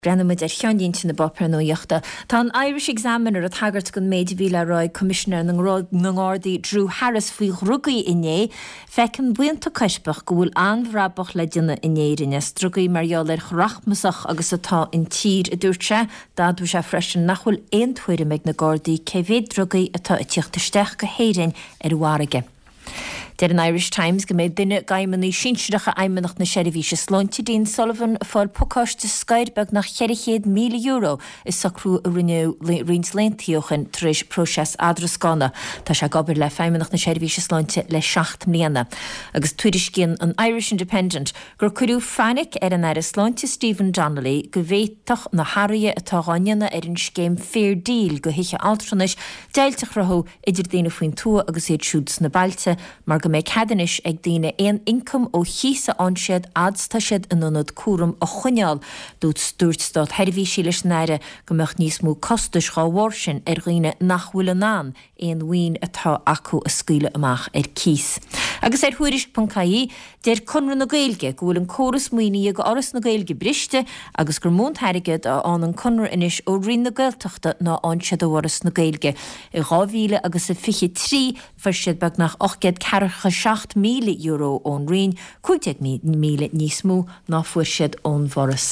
Breathnóidh muid ar cheannlínte na bpáipéar nuachta. Tá an Irish Examiner ag tagairt don méid a bhí le rá ag Coimisinéir na nGardaí Drew Harris faoi dhrugaí inné. Feiceann buíonta coirpeach go bhfuil an-bhrabach le déanamh in Éirinn as drugaí mar gheall ar chomh rachmasach agus atá an tír, a dúirt sé. D'admhaigh sé freisin nach bhfuil aon tuairim ag na Gardaí cé mhéad drugaí atá ag tíocht isteach go hÉirinn ar an bhfarraige. Deir an Irish Times go mbeidh duine d'fheidhmeannaigh sinsearacha Fheidhmeannacht na Seirbhíse Sláinte, Dean Sullivan, ag fáil pacáiste scoir beagnach €400,000 i socrú a rinneadh roinnt laethanta ó shin tar éis próiseas eadrascána. Tá sé ag obair le Feidhmeannacht na Seirbhíse Sláinte le 7 mbliana. Agus tuairiscíonn an Irish Independent gur cuireadh fainic ar an Aire Sláinte Stephen Donnelly go bhféadfadh na hathruithe atá dhá ndéanamh ar an scéim Fair Deal do thithe altranais deighilt a chruthú idir daoine faoin tuath agus iad siúd sna bailte, mar go mbeidh cead anois ag daoine aon ioncam ó chíos a fhaigheann siad fhad 's tá siad in ionad cúraim a choinneáil. Dúirt státsheirbhísigh leis an Aire go mbeadh níos mó costais dhá bharr sin ar dhaoine nach bhfuil in ann aon mhaoin atá acu a scaoileadh amach ar cíos. Agus ar Thuairisc.ie, Deir Conradh na Gaeilge go bhfuil an córas maoinithe do Fhoras na Gaeilge briste agus gur mó an t-airgead a fhaigheann an Conradh anois ó Roinn na Gaeltachta ná a fhaigheann siad ó Fhoras na Gaeilge. I 2023 fuair siad beagnach €847,000 ón Roinn, 15,000 níos mó ná fuair siad ón bhForas.